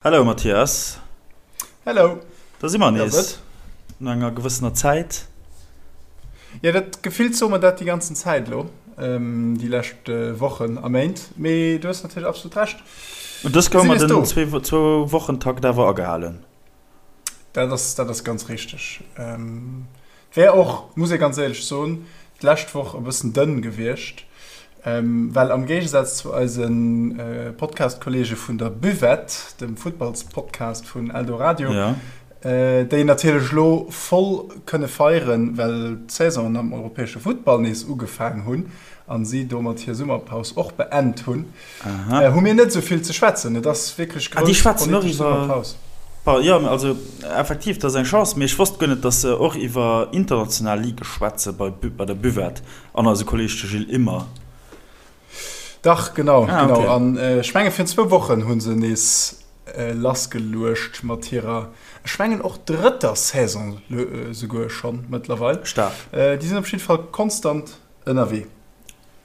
Hello Mathias. Hello. Da si mer nees. No enger gewëssener Zäit. Jo, dat gefillt soe mer dat déi ganzen Zäit elo, déi lescht Wochen a Méint. Mee du hues natierlech absolut Recht. Un dës Kéier hu mer den Zwou-Wochen-Takt awer agehalen. Dat ass, dat ass ganz richteg. Wär och, muss ee ganz éierlech soen, d'lescht Woch e bëssen dënn gewiescht, well am Géigesaz zu eise Podcast-Kolleege vun der Buvette, dem Futtballspodcast vun Eldoradio, déi natierlech elo voll kënne feieren, well d'Saisonen am europäesche Futtball nees ugefaang hunn a si domat hir Summerpaus och beent hunn, Hu mir net esou vill ze schwätzen. Et ass wierklech grouss politesch Summerpaus. Jo, also effektiv, dat ass eng Chance. Mee ech wosst guer net, datt se och iwwer international Ligue schwätze bei der Buvette an eise Kolleeg de Gilles Immer. Dach, genau, genau. An ech menge virun zwou Wochen hu se nees lassgeluecht mat hirer, ech mengen och drëtter Saison esouguer schonn mëttlerweil. Staark. Déi sinn op jidde Fall konstant ënnerwee.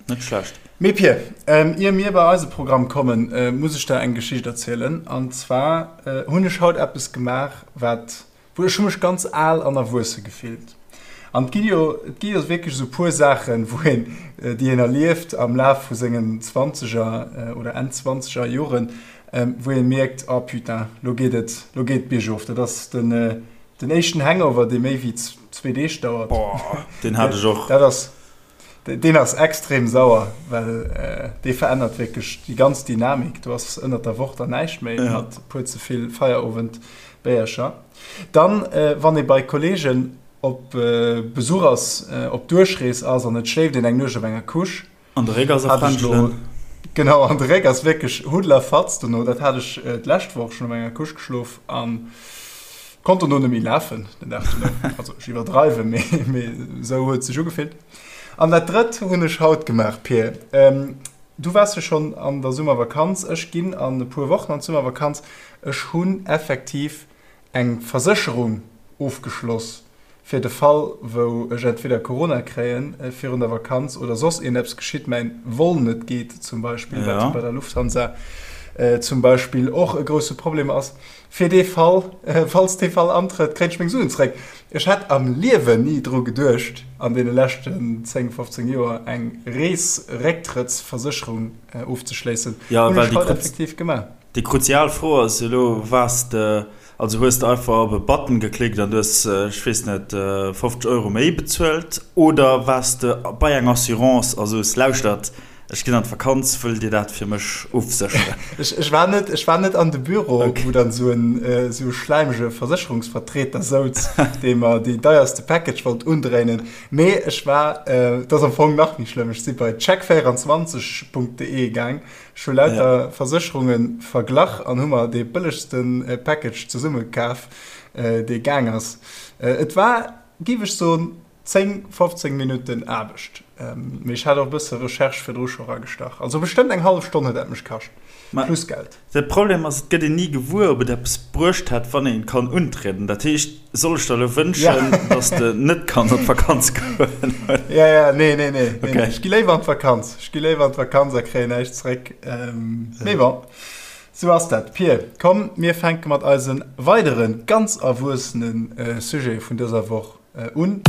Net schlecht. Mee Pir, ier mir bei eise Programm kommen, muss ech der eng Geschicht erzielen. An zwar hunn ech haut eppes gemaach, wat, wou ech hu mech ganz al an erwuesse gefillt. An et gi jo, et gi jo wierklech esou puer Saachen, wou een, déi een erlieft am Laf vu sengen Zwanzeger oder Enn Zwanzeger Joren, wou ee mierkt, oh putain, lo geet et, lo geet et biergof. Dat ass den, den éischten Hangover, dee méi wéi zwee Deeg dauert. Boah, deen hat ech och. Dat ass. Deen ass extrem sauer, well dee verännert wierklech déi ganz Dynamik. Do ass ënnert der Woch dann näischt méi mat e puer ze vill Feierowend-Béiercher. Dann, wann ee bei Kolleegen op Besuch ass, op Duerchrees ass an et schléift een eng Nuecht op enger Couche. An de Réck ass a Fränschelen. Genau, an de Réck ass wierklech Huddel a Fatz dono. Dat hat ech d'lescht Woch schonn op enger Couche geschlof an konnt dono net méi lafen den Dag dono. Also ech iwwerdreiwen, mee esou huet et sech ugefillt. An dat drëtt hunn ech haut gemaach, Pir. Du waars jo schonn an der Summervakanz, ech ginn an e puer Wochen an d'Summervakanz. Ech hunn effektiv eng Versécherung ofgeschloss fir de Fall, wou ech entweder Corona kréien virun der Vakanz oder soss iergendeppes geschitt, mäin Vol net geet zum Beispill, wat jo bei der Lufthansa zum Beispill och e grousse Problem ass. Fir dee Fall, falls dee Fall antrëtt, kréien ech meng Suen zréck. Ech hätt am Liewen ni dru geduecht, an deene leschten 10, 15 Joer eng Reesrécktrëttsversécherung ofzeschléissen. Jo, Hunn well ech déi haut effektiv gemaach. Déi kruzial Fro ass jo elo, Waars de, also hues de einfach op e Button geklickt an du hues, ech weess net, 50 Euro méi bezuelt oder waars de bei eng Assurance a soos, lauschtert, Ech ginn an d'Vakanz, wëllt Dir dat fir mech ofsécheren? Ech war net, ech war net an de Büro, okay. wou dann esou en esou e schläimege Versécherungsvertreter souz, dee mer déi deierste Package wollt undréinen. Mee ech war, et ass am Fong nach méi schlëmm, ech si bei check24.de gaang, ech hu lauter ja. Versécherunge verglach an hu mer dee bëllegste Package zesummekaf, dee gaang ass. Et war, géif ech soen, 10, 15 Minutten Aarbecht. Mee ech hat och e bësse Recherche virdru scho ragestach. Also bestëmmt eng hallef Stonn huet dat mech kascht. Plus Geld. De Problem ass, et gëtt een ni gewuer, ob et eppes bruecht hätt, wann een kann untrieden. Dat heescht, soll ech der elo wënschen, dass de net kanns an d'Vakanz goen? Ja, ja, nee, nee, nee. Okay. Nee, ech gi léiwer an d'Vakanz. Ech gi léiwer an d'Vakanz a kréien näischt zréck. Mee bon, sou ass dat. Pir, komm, mir fänke mat eise weidere ganz erwuessene Sujet vun dëser Woch un.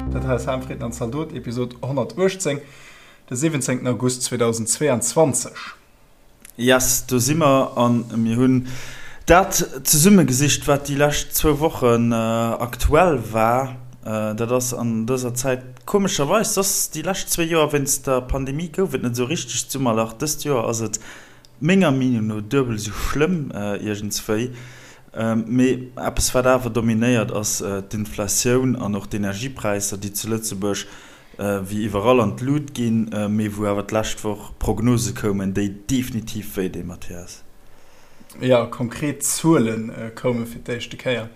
Dat hei ass Harmfrieden an Zaldot, Episod 118, de 17 August 2022. Yes, do si mer an mir hunn dat zesumme gesicht, wat déi lescht zwou Wochen aktuell war. Dat ass an dëser Zäit komescherweis, soss déi lescht zwee Joer wéinst der Pandemie gouf et net esou richteg d'Summerlach. Dëst Joer ass et menger Meenung no duebel esou schlëmm iergendswéi. Mee eppes wat awer dominéiert ass d'Inflatioun an och d'Energiepräisser, déi zu Lëtzebuerg wéi iwwerall an d'Lut ginn, mee wou awer d'lescht Woch Prognose koumen, déi definitiv wéi dinn, Mathias. Jo, konkret Zuele koume fir d'éischte Kéier.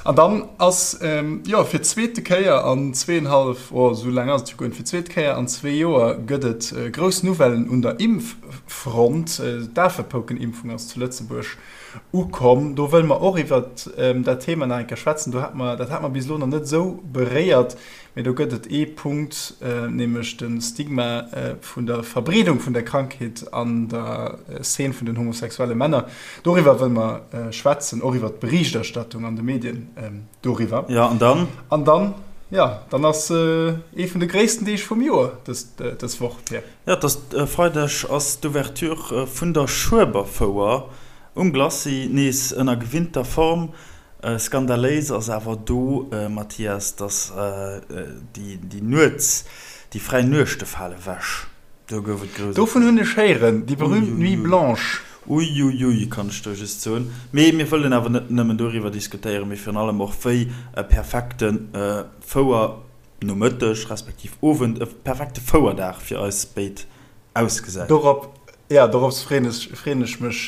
An dann ass, jo, fir d'zweete Kéier an zweeënhallef, oh, esou laang ass et jo guer net, fir d'zweet Kéier an zwee Joer gëtt et grouss Nouvellen un der Impffront. D'Afepoukenimpfung ass zu Lëtzebuerg. ukomm. Do wëlle mer och iwwert dat Thema nach eng Kéier schwätzen. Do hat mer, dat hat mer bis elo nach net esou beréiert, mee do gëtt et ee Punkt, nämlech de Stigma vun der Verbreedung vun der Krankheet an der Szene vun den homosexuelle Männer. Doriwwer wëlle mer schwätzen, och iwwert d'Berichterstattung an de Medien doriwwer. Jo, an dann? An dann, jo, dann ass ee vun de gréissten Deeg vum Joer dës Woch, Pierre. Jo, et ass e Freideg ass d'Ouverture vun der Schueberfouer um Glacis, nees ënner gewinnter Form. Skandaléis ass awer do, Mathias, dass déi Nuets, déi fräi Nuechte fale wech. Do gouf et grouss. Dovun hunn ech héieren, déi berühmt Nuit blanche. Uiuiui, kann ech do just soen. Mee mir wëllen awer net nëmmen doriwwer diskutéieren, mee virun allem och wéi e perfekte Fouer-Nomëtteg respektiv Owend, e perfekte Fouerdag fir eis béid ausgesäit. Dorop, jo, dorops freeën ech, freeën ech mech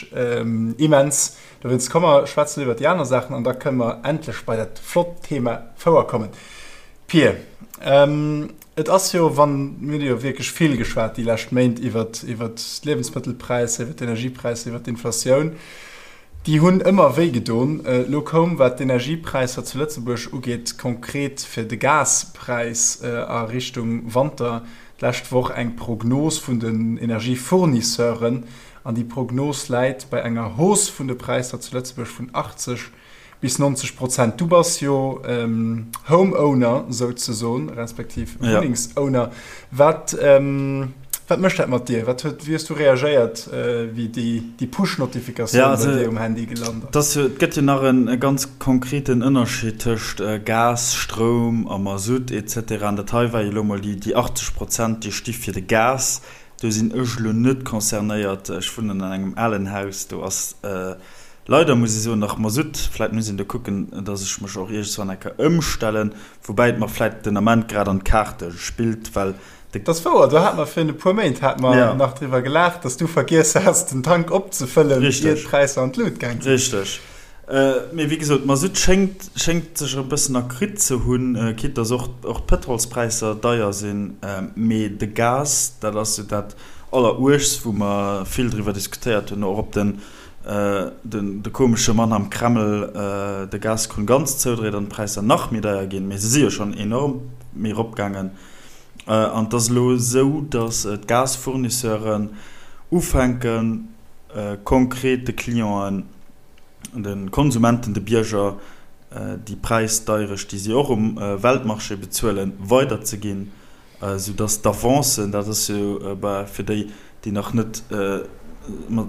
immens. Dowéinst komm mer schwätzen iwwert déi aner Saachen an da kënne mer endlech bei dat flott Thema Fouer kommen. Pir, et ass jo, wann, mir hunn jo wierklech vill geschwat déi lescht Méint iwwert, iwwert d'Liewensmëttelpräisser, iwwert d'Energiepräisser, iwwert d'Inflatioun. Déi hunn ëmmer wéi gedon. Elo koum, wat d'Energiepräisser zu Lëtzebuerg ugeet, konkret fir de Gaspräis a Richtung Wanter, d'lescht Woch eng Prognos vun den Energiefournisseuren an déi Prognos läit bei enger Hausse vun de Präisser zu Lëtzebuerg vun 80 bis 90 Prozent. Du bass jo Homeowner souzesoen, respektiv Wunnengsowner. Wat wat mécht dat mat dir? Wat huet, wéi hues du reagéiert, wéi déi déi Push-Notifikatioun bei dir um Handy gelant ass? Et gëtt jo nach e ganz konkreten Ënnerscheed tëscht Gas, Stroum a Masutt etc. An dat hei war jo elo mol déi déi 80 Prozent, déi sti fir de Gas. Do sinn ech elo net concernéiert. Ech wunnen an engem alen Haus, do ass leider, muss ee soen, nach Masutt. Vläit muss een do kucken, datt ech mech och iergendswann eng Kéier ëmstellen, woubäi et mer vläit den Ament grad an d'Kaarte spillt, well de. Dat ass wouer, do hate mer virun e puer Méint hate mer nach driwwer gelaacht, datt du vergiess has, den Tank opzefëllen, ier d'Präisser an d'Lut gaang sinn. Richteg. Mee wéi gesot, Masutt schéngt, schéngt sech e bëssen erkritt ze hunn, quitte datt och, och d'Pëtrolspräisser deier sinn. Mee de Gas, dat ass jo dat Alleruergst, wou mer vill driwwer diskutéiert hunn, och ob den, den, de komesche Mann am Kreml de Gaskrunn ganz zoudréit an d'Präisser nach méi deier ginn. Mee se si jo schonn enorm méi eropgaangen. An et ass elo esou, datt d'Gasfournisseuren ufänken, konkret de Clienten, de Konsumenten, de Bierger déi Präisdeierecht, déi si och um Weltmarché bezuelen, weiderzeginn, soudass d'Avancen, dat ass jo fir déi, déi nach net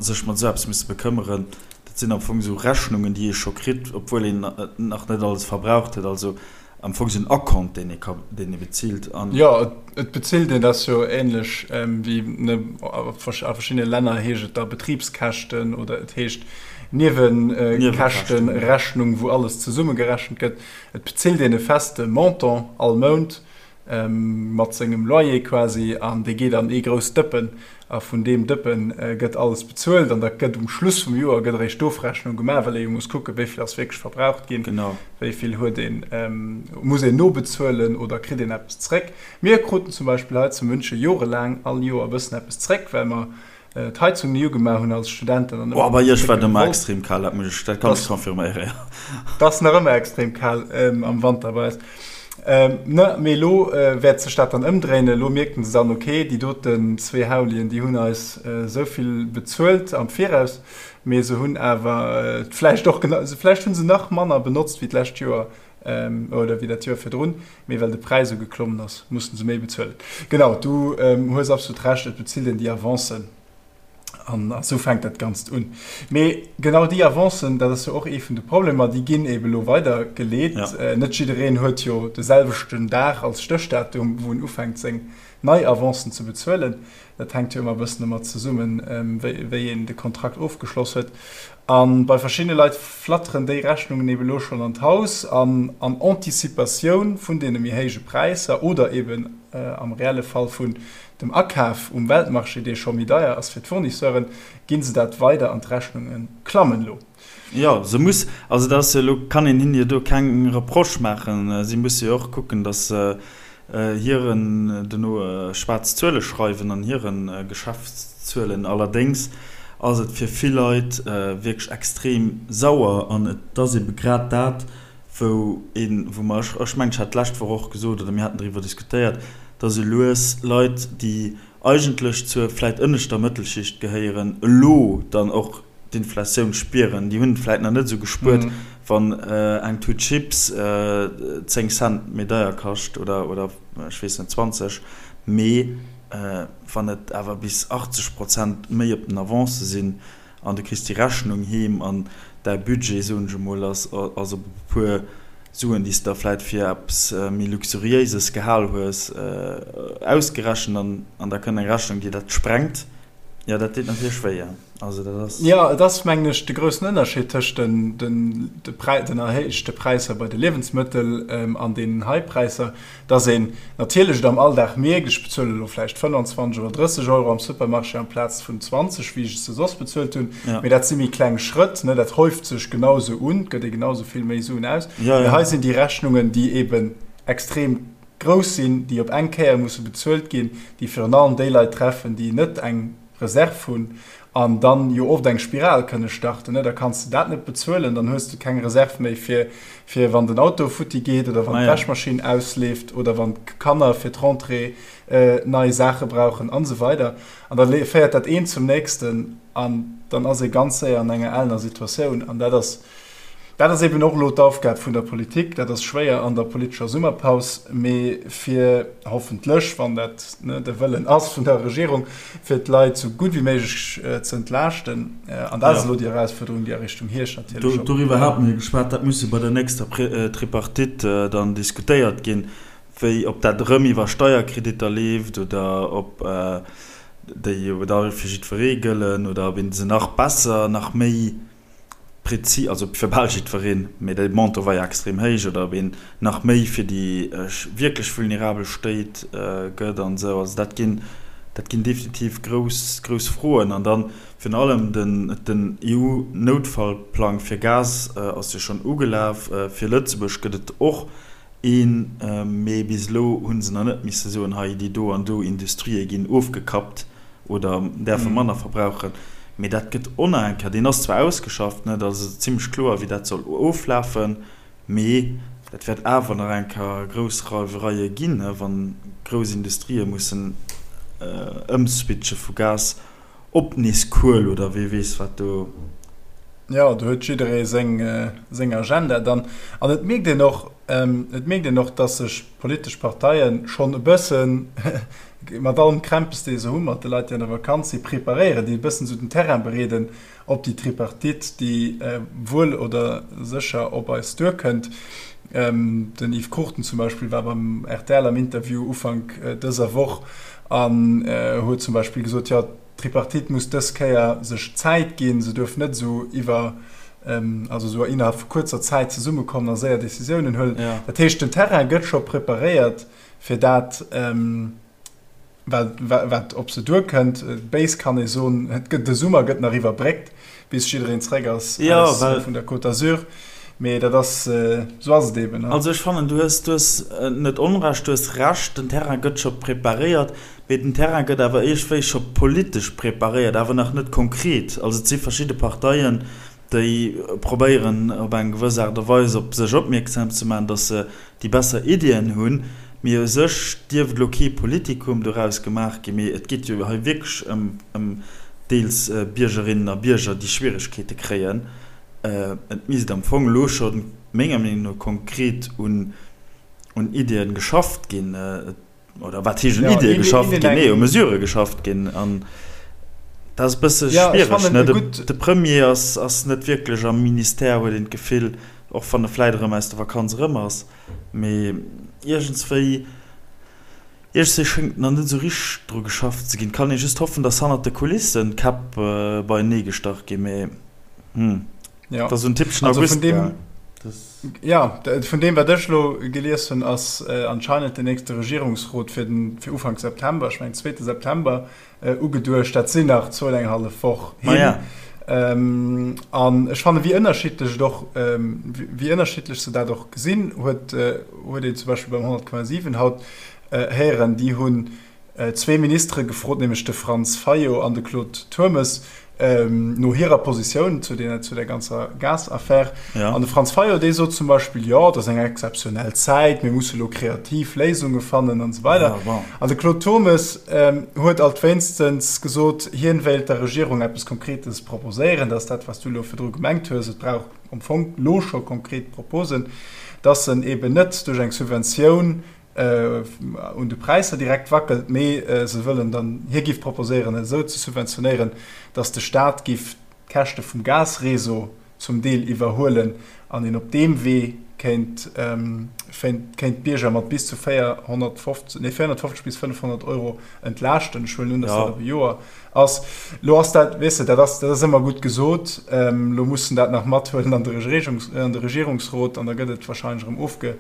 sech mat esou eppes musse bekëmmeren, dat sinn am Fong esou Rechnungen, déi ee scho kritt, obwuel een nach net alles verbraucht huet, also Am Fong sou en Acompte, deen ee ka, deen ee bezilt an. Jo, et bezilt een, dat ass jo ähnlech wéi, ne, a verschiddene Länner heescht et da Betribskäschten oder et heescht Niewekäschtenrechnung, wou alles zesummegerechent gëtt. Et bezilt een e feste Montant all Mount mat sengem Loyer quasi an dee geet an ee grousst Dëppen a vun deem Dëppen gëtt alles bezuelt an da gëtt um Schluss vum Joer gëtt eréischt d'Ofrechnung gemaach, well ee jo muss kucken, wéi vill ass wierklech verbraucht ginn, wéi vill huet een, muss een nobezuelen oder kritt een eppes zréck. Mir kruten zum Beispill hei zu München jorelaang all Joer e bëssen eppes zréck, well mer d'Heizung ni ugemaach hunn als Studenten an ëmmer. Oh, bei iech war et ëmmer extrem kal, dat muss ech, dat kann ech confirméieren, jo. Et ass nach ëmmer extrem kal am Wanter bei eis. Ne, mee elo wäert sech dat dann ëmdréinen. Elo mierken se dann, ok, déi doten zwee Haulien, déi hunn eis esou vill bezuelt am Viraus, mee se hunn awer vläicht och, vläicht hu se nach manner benotzt wéi d'lescht Joer oder wéi dat Joer virdrun, mee well de Präis esou geklommen ass, mussen se méi bezuelen. Genau, du hues absolut Recht, et bezilt een déi Avancen an esou fänkt dat Ganzt un. Mee genau déi Avancen, dat ass jo och ee vun de Problemer, déi ginn eebe elo weidergeleet. Net jiddereen huet jo de selwechten Dag als Stéchdatum, wou en ufänkt seng nei Avancen ze bezuelen. Dat hänkt jo ëmmer e bëssen domat zesummen, wéi een de Kontrakt ofgeschloss huet. A bei verschiddene Leit flatteren déi Rechnungen ebe lo schonn an d'Haus an an Anticipatioun vun deene méi héije Präisser oder eben am reelle Fall vun dem Akaf um Weltmarché, dee scho méi deier ass fir d'Fournisseuren, gi se dat weider an d'Rechnunge klammen elo. Jo, se muss, also dat ass jo elo, kann een hinnen jo do keng Reproche maachen. Si musse jo och kucken, datt se hiren dono schwaarz Zuele schreiwen an hire Geschäftszuelen. Allerdéngs. ass et fir vill Leit wierklech extrem sauer. An et ass ebe grad dat, wou een, wou mer, ech mengen, ech hat d'lescht Woch och gesot, oder mir haten driwwer diskutéiert, dass esou lues Leit, déi eigentlech zur vläit ënneschter Mëttelschicht gehéieren, elo dann och d'Inflatioun spieren. Déi hunn et vläit nach net esou gespuert, wann eng Tut Chips 10 Cent méi deier kascht oder, oder ech weess net, 20, mee wann et awer bis 80 Prozent méi op den Avancë sinn an du kriss déi Rechnung heem an däi Budget, soen ech emol, ass ass op e puer Suen, déi s de der vläit fir eppes méi Luxuriéises gehal hues, ausgerechent an an da kënnt eng Rechnung, déi dat sprengt, jo, dat deet natierlech wéi. Also dat ass. Jo, et ass, mengen ech, de groussen Ënnerscheed tëscht den den erhéichte Präisser bei de Liewensmëttel an deenen hei Präisser, dass een natierlech et am Alldag mierkt, ech bezuelen elo vläicht 25 oder 30 Euro am Supermarché amplaz vun 20, wéi ech se soss bezuelt hunn, mee dat si méi kleng Schrëtt, ne, dat häuft sech genau esou un, et gëtt ee genau esou vill méi Suen aus. Mee hei sinn déi Rechnungen, déi eeben extrem grouss sinn, déi op eng Kéier musse bezuelt ginn, déi virun allem déi Leit treffen, déi net eng Reserv hunn an dann jo oft eng Spiral kënne starten, ne, da kanns de dat net bezuelen, dann hues de keng Reserv méi fir fir wann den Auto futti geet oder wann d'Wäschmaschinn ausleeft oder wann d'Kanner fir d'Rentrée nei Saache brauchen an esou weider. An da féiert dat eent zum nächsten an dann ass ee ganz séier an enger ellener Situatioun an dat ass Dat ass eben och elo d'Aufgab vun der Politik. Dat ass schwéier an der politescher Summerpaus, mee fir hoffentlech, wann dat de Wëllen ass vun der Regierung, fir d'Leit esou gutt wéi méiglech ze entlaaschten. An dat ass elo déi Erausfuerderung, déi a Richtung Hierscht natierlech op. Doriwwer hate mir jo geschwat. Dat muss jo bei der nächster Tripartite dann diskutéiert ginn, wéi, ob dat erëm iwwer Steierkreditter leeft oder ob déi jo da fir jiddweree gëllen oder ob ee se nach besser, nach méi prezis, also fir bal jiddwereen, mee de Montant war jo extrem héich, oder ob een nach méi fir déi wierklech vulnerabel Stéit gëtt an esou. Also dat ginn, dat ginn definitiv grouss, grouss Froen. An dann virun allem den, den EU-Noutfallplang fir Gas ass jo schonn ugelaf. Fir Lëtzebuerg gëtt et och een, mee bis elo hu se nach net misse soen, hei déi do an do Industrië ginn ofgekappt. oder däerfe manner verbrauchen, mee dat gëtt och nach eng Kéier, deen ass zwar ausgeschafft, ne, dat ass zimlech kloer wéi dat soll oflafen, mee et wäert awer nach eng Kéier grouss Reiwereie ginn, ne, wa grouss Industrië mussen ëmswitche vu Gas op nees Kuel oder wee weess wat do. Jo, do huet jidderee seng, seng Agenda dann. An et mierkt een och, et mierkt een och, dass sech d'politesch Parteien schonn e bëssen mat allem Krämpes, dee se hu mat de Leit, déi an der Vakanz si, preparéieren, déi e bëssen esou den Terrain bereeden op déi Tripartite, déi wuel oder sécher op eis duerkënnt. Den Yves Cruchten zum Beispill war beim rtl am Interview Ufank dëser Woch an huet zum Beispill gesot, jo, D'Tripartite muss dës Kéier sech Zäit ginn. Se duerf net esou iwwer, also esou innerhalb vu kuerzer Zäit zesummekommen a séier Decisiounen huelen. Dat heescht, den Terrain gëtt scho preparéiert fir dat, wat op se duerkënnt. Béis kann ee soen, et gëtt, de Summer gëtt nach iwwerbréckt, bis jiddereen zréck ass aus vun der Côte d'Azur. Mee dat ass, esou ass et eeben. Also ech fannen, du hues, du hues net Onrecht, du hues Recht, den Terrain gëtt scho preparéiert. Mee den Terrain gëtt awer iergwéi scho politesch preparéiert, awer nach net konkret. Also et si verschidde Parteien, déi probéieren op eng gewëss Aart a Weis op sech opmierksam ze maachen, datt se déi besser Iddien hunn. Mee u sech dierft elo kee Politikum doraus gemaach ginn. Mee et geet jo hei wierklech ëm deels Biergerinnen a Bierger, déi Schwieregkeete kréien. Et misst am Fong elo scho menger Meenung no konkret un Iddien geschafft ginn. Oder wat heescht un Iddie geschafft ginn? Nee, u Mesurë geschafft ginn. An dat ass e bësse schwiereg, ne? De Premier ass, ass net wierklech am Ministère, huet een d'Gefill, och wann e vläit erëm aus der Vakanz erëm ass. Mee iergendswéi, iergendswéi schéngt nach net esou richteg dru geschafft ze ginn. Kann ee just hoffen, datt hannert de Kulissen d'Käpp beienee gestach ginn. Mee hm. Ja. Dat ass en typeschen August. Vun deem, ja, vun deem wat ech lo gelies hunn, ass äh, anscheinend den nächste Regierungsrot fir, den, fir Ufank September, ech mengen 2. September, äh, ugeduecht. Dat sinn nach zwou eng hallef Woch hin. Ja. Ähm, an ech fanne wéi ënnerschiddlech et och ähm, wéi ënnerschiddlech se dat och gesinn huet, äh, huet een zum Beispill beim 100,7 haut äh, héieren, déi hunn zwee Ministere gefrot, nämlech de Franz Fayot an de Claude Turmes. No hirer Positioun zu deene, zu der ganzer Gasaffär. Ja. An de Franz Fayot, dee sot zum Beispill, jo, et ass eng exzeptionell Zäit, mir musse lo kreativ Léisunge fannen an esou weider. Ja, bon. An de Claude Turmes huet alt wéinstens gesot, hien wéilt der Regierung eppes Konkretes proposéieren. Dat ass dat, wat s du elo virdru gemengt hues, et brauch am Fong lo scho konkret Proposen, dass en eben net duerch eng Subventioun un de Präisser direkt wackelt, mee se wëllen dann, hie giff proposéieren et esou ze subventionéieren, datt de Staat giff d'Käschte vum Gasréseau zum Deel iwwerhuelen an een op deem Wee kéint kéint d'Bierger mat bis zu 450, nee 450 bis 500 Euro entlaaschten. Ech huelen un, datt dat op e Joer ass. Lo ass dat, weess de, dat ass, dat ass ëmmer gutt gesot, lo muss en dat nach mathuelen an de Regierungsrot an da gëtt et wahrscheinlech erëm ofge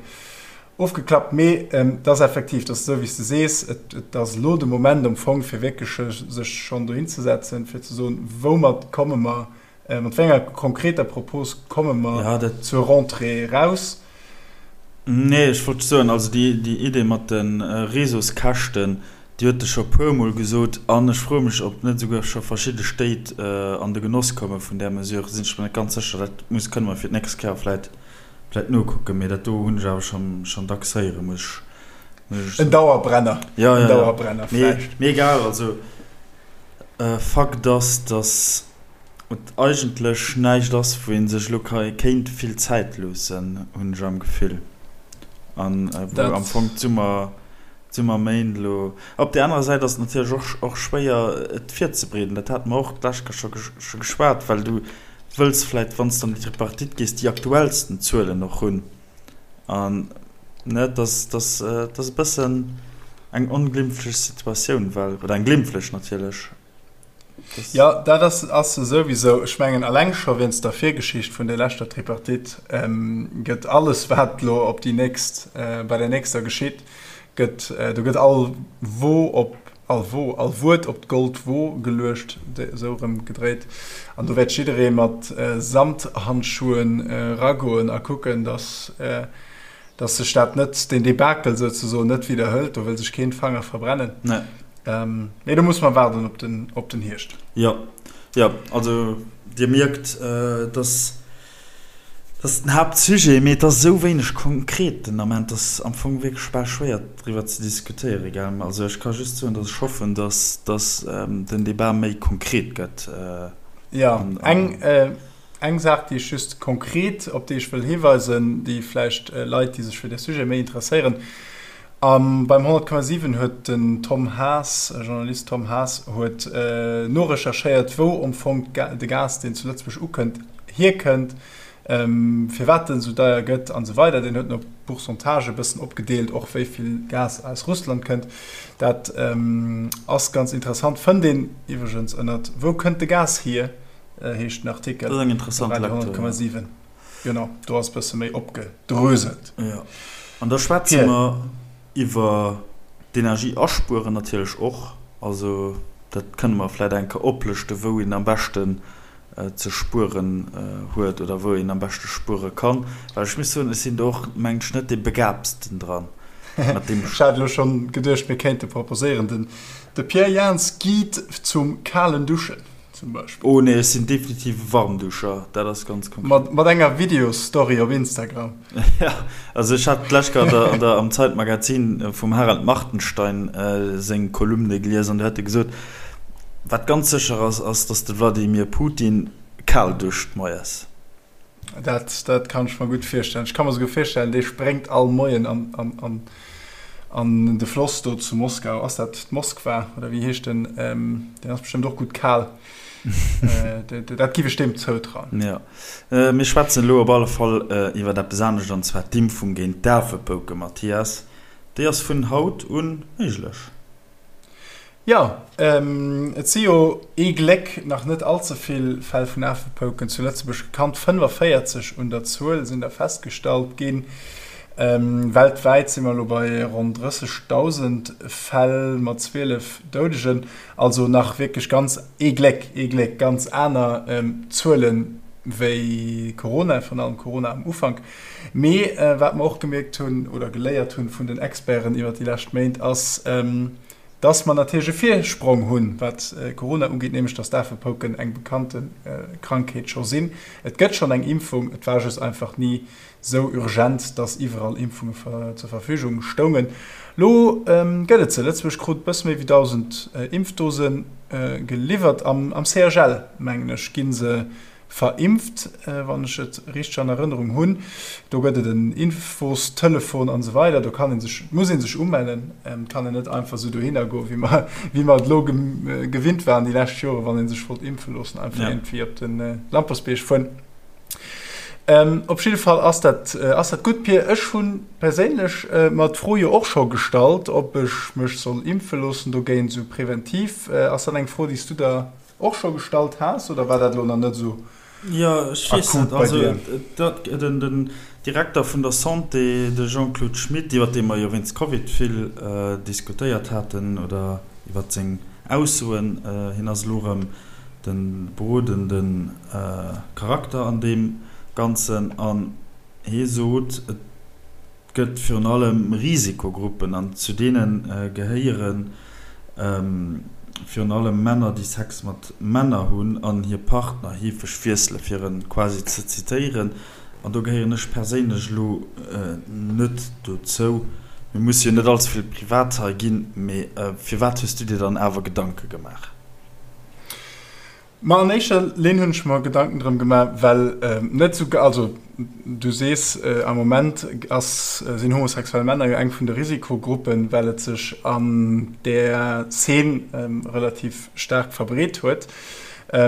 Ofgeklappt, mee et ass effektiv, et ass esou wéi s de sees, et ass elo de Moment am Fong fir wierklech sech schonn dohin ze setzen, fir ze soen, woumat komme mer, mat wéi enger konkreter Propos komme mer zur Rentrée eraus. Nee, ech wollt soen, also déi Idee mat de Réseauskäschten, déi huet e scho e puermol gesot an ech froe mech, ob net esouguer scho verschidde Stéit an de Genoss komme vun där Mesure, sinn ech mer net ganz sécher. Dat muss, kënne mer fir d'nächst Kéier vläicht Vläit nokucken, mee dat do hunn ech awer schon schon dacks héieren, muss ech muss ech En Dauerbrenner. Ja, ja, ja. Dauerbrenner vläicht. Mee egal, also Fakt ass, dass et eigentlech näischt ass, wou ee sech elo ka kéint vill Zäit loossen, hunn ech am Gefill. An wou am Fong d'Summer d'Summerméint elo. Op där anerer Säit ass et natierlech och och schwéier et virzebereeden, dat hate mer och d'lescht Kéier scho scho geschwat, well du wëlls vläit, wann s de an déi Tripartite gees, déi aktuellsten Zuelen och hunn. An, ne, et ass, et ass, et ass e bëssen eng onglimpflech Situatioun, well, oder eng glimpflech natierlech. Jo, dat ass, ass se souwisou. Ech mengen, alleng scho wéinst der Virgeschicht vun der leschter Tripartite gëtt alles, wat elo op déi nächst, bei der nächster geschitt, gëtt, do gëtt all Wo op All Wo, all Wuert op d'Goldwo geluecht, esou erëm gedréit. An do wäert jidderee mat Samthandschuhen eragoen a kucken, dass, dass sech dat net, deen Debakel souzesoen, net widderhëlt. Do wëll sech keen d'Fanger verbrennen. Nee. Mee do musse mer waarden op den, op den Hierscht. Jo, jo, also Dir mierkt, dass. Dat ass den Haaptsujet, mee et ass esou wéineg konkret den Ament, dass am Fong wierklech bal schwéier driwwer ze diskutéieren, gell. Also ech ka just soen, dass ech hoffen, dass, dass den Debat méi konkret gëtt. Jo, eng, eng Saach, déi ech just konkret, op déi ech wëll hiweisen, déi vläicht Leit, déi sech fir dee Sujet méi interesséieren, Beim 100,7 huet den Tom Haas, Journalist Tom Haas, huet norecherchéiert, wou am Fong de Gas, deen zu Lëtzebuerg ukënnt, hierkënnt, firwat en esou deier gëtt an esou weider. Deen huet no Pourcentage e bëssen opgedeelt, och wéi vill Gas aus Russland kënnt. Dat ass ganz interessant, fënnt een iwwregens ënnert Wou kënnt de Gas hier? heescht den Artikel. Dat ass eng interessant Lecture. 100,7. Genau, do ass bësse méi opgedröselt. Jo, an da schwätze mer iwwer d'Energie aspueren natierlech och. Also dat kënne mer vläit eng Kéier oplëschten, wou een am beschten ze spueren huet oder wou een am beschte spuere kann. Well ech muss soen, ech sinn do och, mengen ech, net dee Begaabtsten dran. Mat deem. Ech hat elo schonn geduecht, mir kéinte proposéieren, den de Pierre Jans Guide zum kalen Duschen. Zum Beispill. Oh nee, ech sinn definitiv e Warmduscher, dat ass ganz konkret. Mat, mat enger Videostory op Instagram. Ja, also ech hat d'lescht Kéier an der, an der, am Zeitmagazin vum Harald Martenstein seng Kolumne gelies an do huet e gesot, wat ganz sécher ass, ass, datt de Wladimir Putin kal duscht moies. Dat, dat kann ech mer gutt virstellen. Ech ka mer souguer virstellen, dee spréngt all Moien an, an, an, an de Floss do zu Moskau. Ass dat d'Moskwa oder wéi heescht den? Ähm, deen ass bestëmmt och gutt kal. Äh, dat giff ech deem zoutrauen. Ja. Äh, mir schwätzen elo op alle Fall äh, iwwer eppes anescht, an zwar d'Impfung géint d'Afepouke, Mathias. Déi ass vun haut un méiglech. Jo, et si jo ee Gléck nach net all ze vill Fäll vun Afepouken zu Lëtzebuerg gekannt. 45 un der Zuel sinn der festgestallt ginn. Weltwäit si mer elo bei ronn 30.000 Fäll mat 12 Doudegen. Also nach wierklech ganz, ee Gléck, ee Gléck, ganz aner Zuele wéi Corona, virun allem Corona am Ufank. Mee wat mer och gemierkt hunn oder geléiert hunn vun den Experten iwwer déi lescht Méint ass. Dass mer natierlech e Virsprong hunn, wat Corona ugeet, nämlech dass d'Afepouken eng bekannte Krankheet scho sinn. Et gëtt schonn eng Impfung, et war just einfach ni sou urgent, dass iwwerall Impfunge zur Verfügung stoungen. Lo gëtt et se. Lëtzebuerg krut bësse méi wéi 1.000 Impfdose geliwwert. Am CHL, mengen ech, gi se verimpft, wann ech et richteg an Erënnerung hunn. Do gëtt et en Infostelefon an esou weider. Do kann ee sech, muss ee sech umellen, et kann een net einfach esou dohinner goen, wéi mer, wéi mer et elo gewinnt waren déi lescht Joren, wann ee sech wollt impfe loossen, einfach iergendwéi op de Lampersbierg fueren. Op jidde Fall ass dat, ass dat gutt. Pir, ech hu perséinlech mer d'Fro jo och scho gestallt, ob ech mech soll impfe loossen dogéint, esou preventiv. Ass dat eng Fro, déi s du der Och scho gestallt has, oder war dat elo nach net esou Jo, ech weess akut net. bei Also dir? dat, den, den Direkter vun der Santé, de Jean-Claude Schmit, iwwer dee mer jo wéinst Covid vill diskutéiert haten, oder iwwer seng Aussoen, hien ass elo erëm de berodende Charakter an deem Ganzen, an hie sot, et gëtt virun allem Risikogruppen an zu deene gehéiere virun allem Männer, déi Sex mat Männer hunn an hir Partner heefeg wiesselen, fir e quasi ze zitéieren. An do gehéieren ech perséinlech elo net dozou. Mir musse jo net allze vill privat hei ginn, mee firwat hues du dir dann awer Gedanke gemaach? Ma an éischter Linn hunn ech mer Gedanken drëm gemaach, well net esou, also du sees, am Moment ass, sinn homosexuell Männer jo eng vun de Risikogruppen, well et sech an där Zeen relativ staark verbreet huet.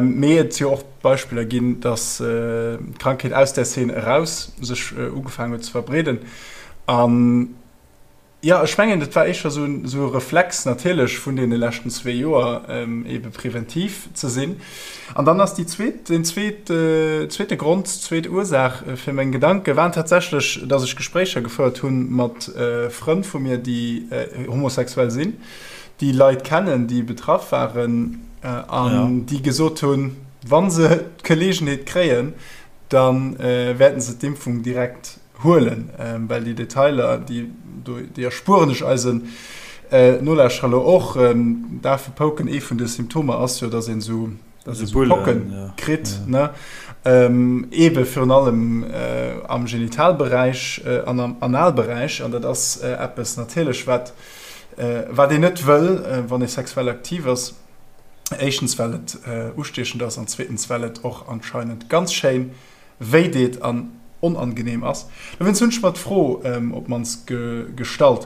Mee et jo och Beispiller ginn, datt d'Krankheet aus där Zeen eraus sech ugefaangen huet ze verbreeden. An Jo, ech mengen, et war éischter esou en, esou e Reflex natierlech vun deene leschten zwee Joer, eebe preventiv ze sinn. An dann ass déi zweet, deen zweet, zweete Grond, zweet Ursaach fir meng Gedanke waren tatsächlech, dass ech Gespréicher gefouert hu mat Frënn vu mir, déi homosexuell sinn, déi Leit kennen, déi betraff waren an déi gesot hunn, wa se d'Geleegenheet kréien, da wäerten se d'Impfung direkt Huelen, well déi Detailer, déi do, déi erspueren ech eisen Nolauschterer elo och. D'Afepouken, ee vun de Symptomer ass jo, dass een esou, dass ee sou Pocken kritt, ne? Eebe virun allem am Genitalberäich an am Analberäich. An dat ass eppes natierlech, wat, wat een net wëll, wann ee sexuell aktiv ass. Éischtens, well et ustiechend ass an zweetens, well et och anscheinend ganz schéin wéi deet an onangenehm ass. Dowéinst hunn ech mer d'Fro op d'mannst gestallt.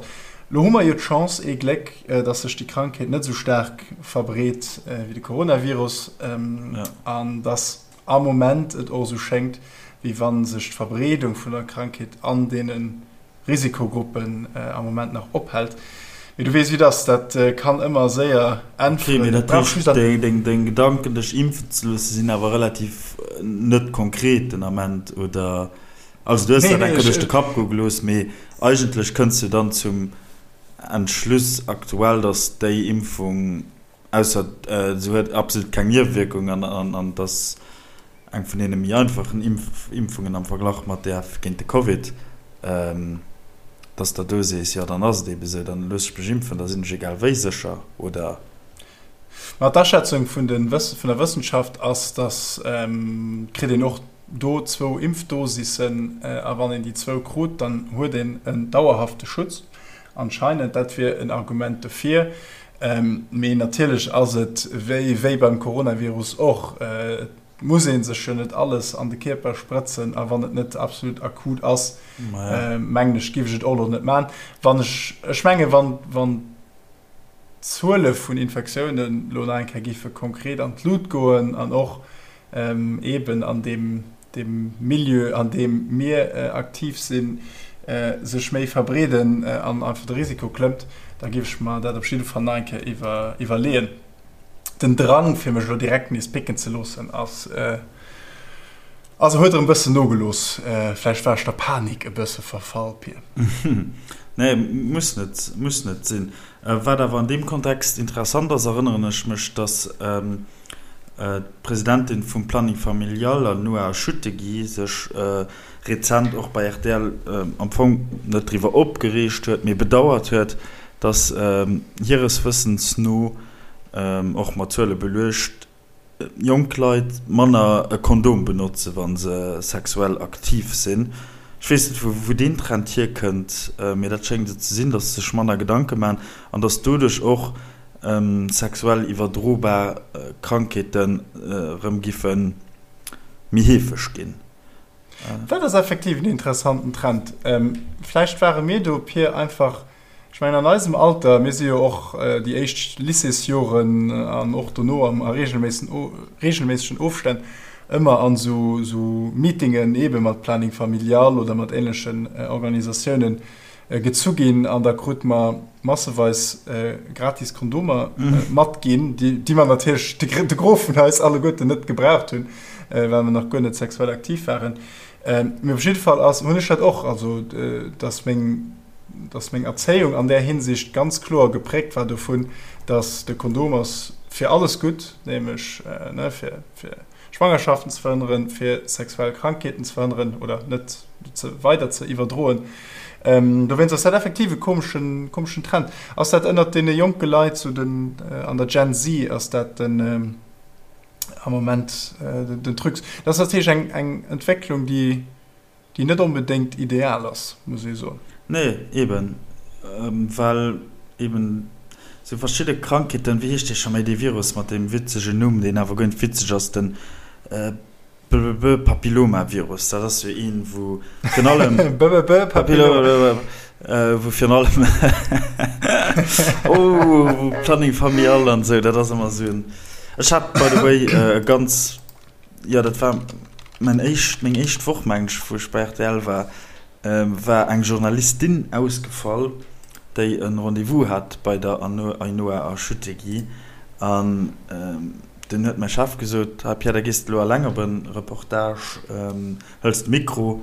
Lo hu mer jo d'Chance, ee Gléck, dass sech déi Krankheet net esou staark verbreet wéi de Coronavirus an dass am Moment et och esou schéngt, wéi wa sech d'Verbreedung vun der Krankheet an deene Risikogruppen am Moment nach ophält. Mee du weess wéi et ass, dat kann ëmmer séier äntweren. Ok, mee dat heescht deng Gedanken dech impfen ze loossen sinn awer relativ net konkret den Ament, oder? Also du hues dat eng Kéier duerch de Kapp goe gelooss, mee eigentlech kënns du dann zum Entschluss aktuell, datt déi Impfung, ausser se huet absolut keng Niewewierkung an an et ass eng vun deene méi einfachen Impfungen am Verglach mat där géint de Covid, dass der do sees, jo dann ass et eebe sou, dann looss ech mech impfen, da sinn ech egal wéi sécher, oder? Ma d'Aschätzung vun de vun der Wëssenschaft ass, dass kritt een och do zwou Impfdosissen a wann een déi zwou krut, dann huet een en dauerhafte Schutz anscheinend. Dat wier en Argument dofir. Mee natierlech ass et wéi beim Coronavirus och, et muss ee sech jo net alles an de Kierper sprëtzen a wann et net absolut akut ass, mengen ech, géif ech et och elo net maachen. Wann ech, ech menge wann, wann d'Zuele vun Infektiounen elo nach eng Kéier géife konkret an d'Lut goen an och eeben an deem, deem Milieu, an deem mir aktiv sinn, sech méi verbreeden an einfach de Risiko klëmmt, da géif ech mer dat op jidde Fall nach eng Kéier iwwerleeën. Den Drang, fir mech elo direkt nees picken ze loossen, ass, also huet erëm e bëssen nogelooss. Vläicht war ech der Panik e bësse verfall, Pir. Nee, muss net, muss net sinn. Wat awer an deem Kontext interessant ass, erënneren ech mech, datt D'Presidentin vum Planning Familial, Noa Achutegui, sech rezent och bei rtl am Fong net driwwer opgereegt huet, mee bedauert huet, Dass hires Wëssens no, och mat Zuele beluecht, jonk Leit manner e Kondom benotze wa se sexuell aktiv sinn. Ech weess net wou deen Trend hierkënnt, mee dat schéngt esou ze sinn, dass se sech manner Gedanke maachen an dass doduerch och sexuell iwwerdrobar Krankheeten erëm giffe méi heefeg ginn. Dat ass effektiv en interessanten Trend. Vläicht ware mir do, Pir, einfach, ech mengen an eisem Alter, mir si jo och déi éischt Lycéesjoren an och dono am a reegelméissegen Ofstänn ëmmer an esou Meetingen eebe mat Planning Familial oder mat änlechen Organisatiounen gezu ginn an da krute mer masseweis gratis Kondomer matginn, déi mer natierlech, de Gros vun eis alleguerten, net gebraucht hunn, well mer nach guer net sexuell aktiv waren. Mee op jidde Fall ass, hunn ech dat och, also dass meng, dass meng Erzéiung an där Hinsicht ganz kloer gepräägt war dovun, dass de Kondom ass fir alles gutt, nämlech, ne, fir, fir Schwangerschaften ze verhënneren, fir sexuell Krankheeten ze verhënneren oder net ze weider ze iwwerdroen. Dowéinst ass dat effektiv e komeschen, komeschen Trend. Ass dat ënnert deene jonke Leit, sou den, an der Gen Z ass dat den am Moment den Truc. Dat ass natierlech eng, eng Entwécklung, déi déi net onbedéngt ideal ass, muss ee soen. Nee, eben, well eben sou verschidde Krankheeten, wéi heescht dee scho méi, dee Virus mat deem witzegen Numm, deen awer guer net witzeg ass, den Bbbb-Papillomavirus, dat ass jo een, wou virun allem. Bbbb-Papilloma. Wou virun allem, oh, Planning familial an esou, dat ass ëmmer esou en, ech hat by the way e ganz. Jo, dat war mäin éischt, meng éischt Woch, mengen ech, wou ech bei rtl war, war eng Journalistin ausgefall, déi e Rendez-vous hat bei der Ainhoa Achutegui. An dunn huet mäi Chef gesot, Hei Pierre, da gees de elo eleng op e Reportage, hëls de Mikro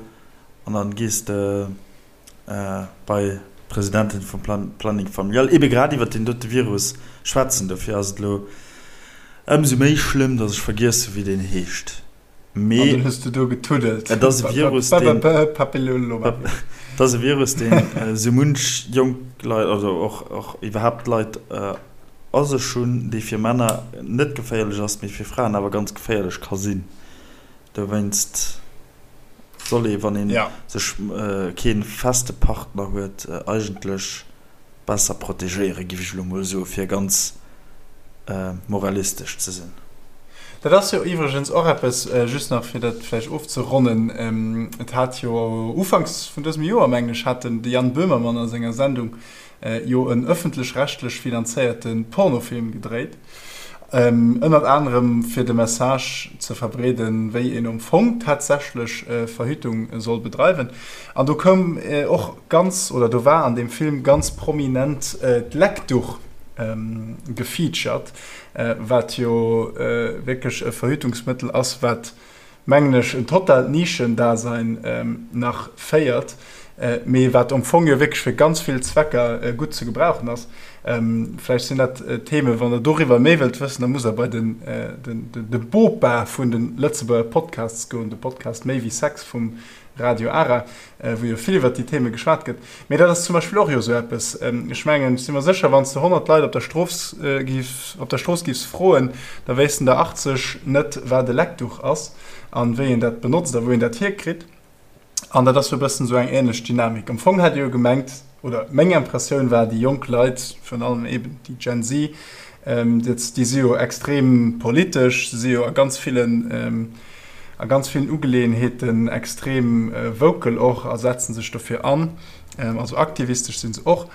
an dann gees de bei d'Presidentin vum Planning Familial ebe grad iwwer deen dote Virus schwätzen. Dofir ass et elo ëmsou méi schlëmm, datt ech vergiess hu wéi deen heescht. Mee An dunn hues de do getuddelt. Et ass e Virus, deen, et ass e Virus, deen esou munch jonk Leit oder och, och iwwerhaapt Leit a sech hunn, dee fir Männer net geféierlech ass, mee fir Fraen awer ganz geféierlech ka sinn. Dowéinst soll ee, wann ee sech kee feste Partner huet, eigentlech besser protegéieren, giff ech elo mol soen, fir ganz moralistesch ze sinn. Dat ass jo iwwregens och eppes, just nach fir dat vläicht ofzeronnen, et hat jo ufanks vun dësem Joer, mengen ech, hat den de Jan Böhmermann a senger Sendung jo en ëffentlech-rechtlech finanzéierte Pornofilm gedréit, Ënnert anerem fir de Message ze verbreeden, wéi een um Fong tatsächlech Verhütung soll bedreiwen. An do koum och ganz, oder do war an deem Film ganz prominent d'Leckduch gefeatured, wat jo wierklech e Verhütungsmëttel ass, wat mengen ech, en totaalt Nischendasein nach féiert, mee wat am Fong jo wierklech fir ganz vill Zwecker gutt ze gebrauchen ass. Vläicht sinn dat Themen, wann Der doriwwer méi wëllt wëssen, da musst Der bei den, de Bopa vun de Lëtzebuerger Podcasts goen, de Podcast Méi wéi Sex vum Radio Ara, wou jo vill iwwert déi Theme geschwat gëtt. Mee dat ass zum Beispill och jo esou eppes, ech mengen, ech si mer sécher, wann s de 100 Leit op der Strooss giffs, op der Strooss giffs froen, da wéissten der 80 net, wat e Leckduch ass an wéi een dat benotzt a wou een dat hierkritt. An dat ass jo e bëssen esou eng änlech Dynamik. Am Fong hätt ee jo gemengt, oder meng Impressioun war, déi jonk Leit, virun allem eeben déi Gen Z, déi si jo extrem politesch, se si jo a ganz villen, a ganz villen Ugeleeënheeten extrem vocal och a setzen sech dofir an, also aktivistesch si se och,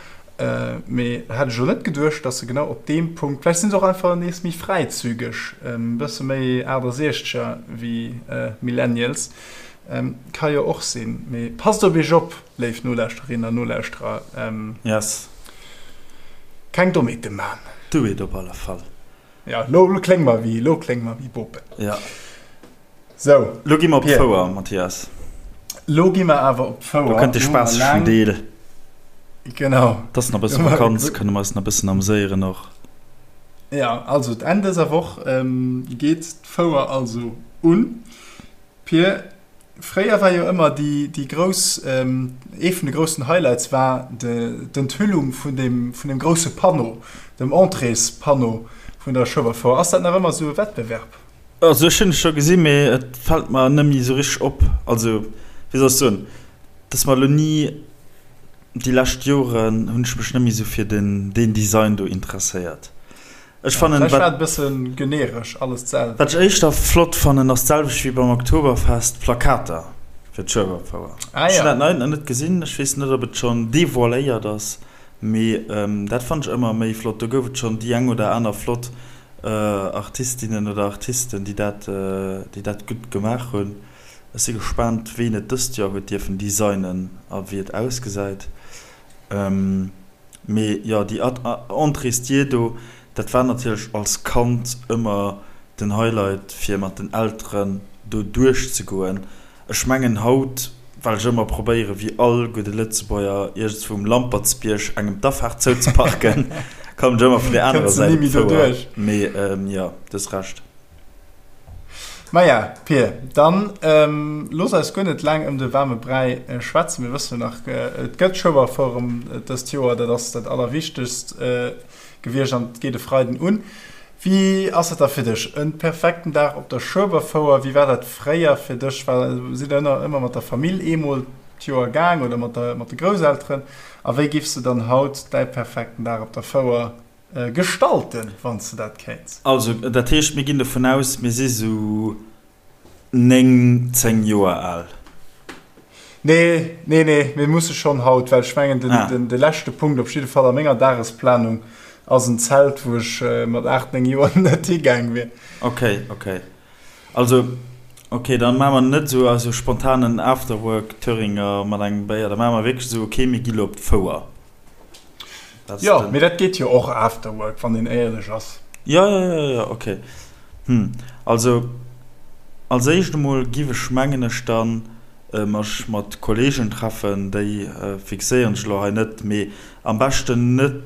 mee hätt ech elo net geduecht, datt se genau op deem Punkt, vläicht si se och einfach nees méi fräizügeg, e bësse méi 68er wéi Millennials, ka jo och sinn. Mee passt op iech op, léif Nolauschterinnen an Nolauschterer, Yes. Keng Dommheete man. Do it op alle Fall. Ja, lo, lo kléng mer wéi, lo kléng mer wéi Bopen. Ja. Sou. Lo gi mer op d'Fouer, Mathias. Lo gi mer awer op d'Fouer. Do kënnt de spaassegen Deel. Genau. Et ass nach e bësse Vakanz, kënne mer eis nach e bëssen ameséieren och. Ja, also Enn dëser Woch geet d'Fouer also un. Pir. Fréier war jo ëmmer déi, déi grouss, ee vun de groussen Highlights war de, d'Enthüllung vun deem, vun deem grousse Panneau, dem Entréespanneau vun der Schueberfouer. Ass dat nach ëmmer esou e Wettbewerb? Also ech hunn e scho gesinn, mee et fält mer net méi esou richteg op. Also wéi soll ech soen, et ass mer elo ni, déi lescht Joren hunn ech mech net méi esou fir den, deen Design do interesséiert. Ech fannen, wat. Vläicht war et e bësse generesch, alles d'selwecht. Wat ech éischter flott fannen, ass d'selwecht wéi beim Oktoberfest, d'Plakater fir d'Schueberfouer. Ah, ja. Ech hunn dat nach net gesinn, ech weess net, ob et schonn devoiléiert ass, mee dat fannen ech ëmmer méi flott. Do gouf et schonn déi eng oder aner flott Artistinnen oder Artisten, déi dat, déi dat gutt gemaach hunn. Ech si gespaant, ween et dëst Joer huet dierfen designen a wéi et ausgesäit. Mee jo, déi Entréesdier do, dat war natierlech als Kand ëmmer den Highlight fir mat den Elteren do duerchzegoen. Ech mengen haut, well ech ëmmer probéieren, wéi all gudde Lëtzebuerger, iergendswou um Lampertsbierg engem d'Afaart zouzeparken, kommen ech ëmmer vun der anerer Säit op d'Fouer. Mee jo, du hues Recht. Maja, Pir, dann looss eis guer net laang ëm de waarme Bräi schwätzen. Mir wëssen jo nach, et gëtt Schueberforum dëst Joer, dat ass dat Allerwichtegst gewiescht an et geet e Freiden un. Wéi ass dat da fir dech, e perfekten Dag op der Schueberfouer? Wéi war dat fréier fir dech? Sidd der ëmmer mat der Famill eemol d'Joer gaang oder mat de Grousselteren? A wéi giffs de dann haut däi perfekten Dag op der Fouer Gestalten, wann s de dat kéints. Also, dat heescht, mir ginn dovun aus, mir si sou 9, 10 Joer al. Nee, nee, nee, mir musse schonn haut, well ech mengen, den, den, de leschte Punkt op jidde Fall a menger Dagesplanung ass en Zelt, wou ech mat 8, 9 Joer net higaang wier. Okay, okay. Also, okay, dann maache mer net esou esou spontanen Afterwork Thüringer mat engem Béier, da maache mer wierklech esou, okay, mir gi lo op d'Fouer. Jo, mee dat geet jo och after work, wann een éierlech ass. Jo, jo, jo, jo, ok. Hm, also als éischt emol giff ech, mengen ech, dann mech mat Kollegen treffen, déi fixéieren ech elo hei net, mee am beschten net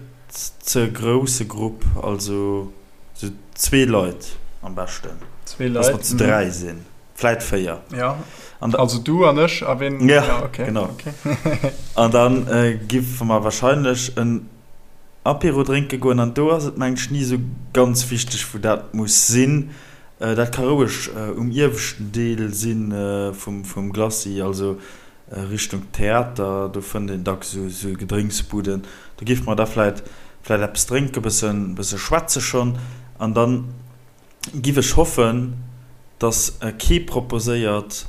ze grousse Grupp, also sou zwee Leit am beschten, dass mer zu 3 sinn. Vläit 4. Ja, an also du an ech a ween. Ja, ja okay. Genau. Okay. an dann äh, giffe mer wahrscheinlech en Apéro drénke goen an do ass et mengen ech ni esou ganz wichteg wou dat muss sinn. Äh, dat ka roueg äh, um ieweschten Deel sinn äh, vum, vum Glacis, also äh, Richtung Theater, do fënnt een dacks esou, esou Gedrénksbuden. Do giffe mer da vläit, vläit eppes drénke, bëssen, bësse schwätze schonn an dann giff ech hoffen, dass kee proposéiert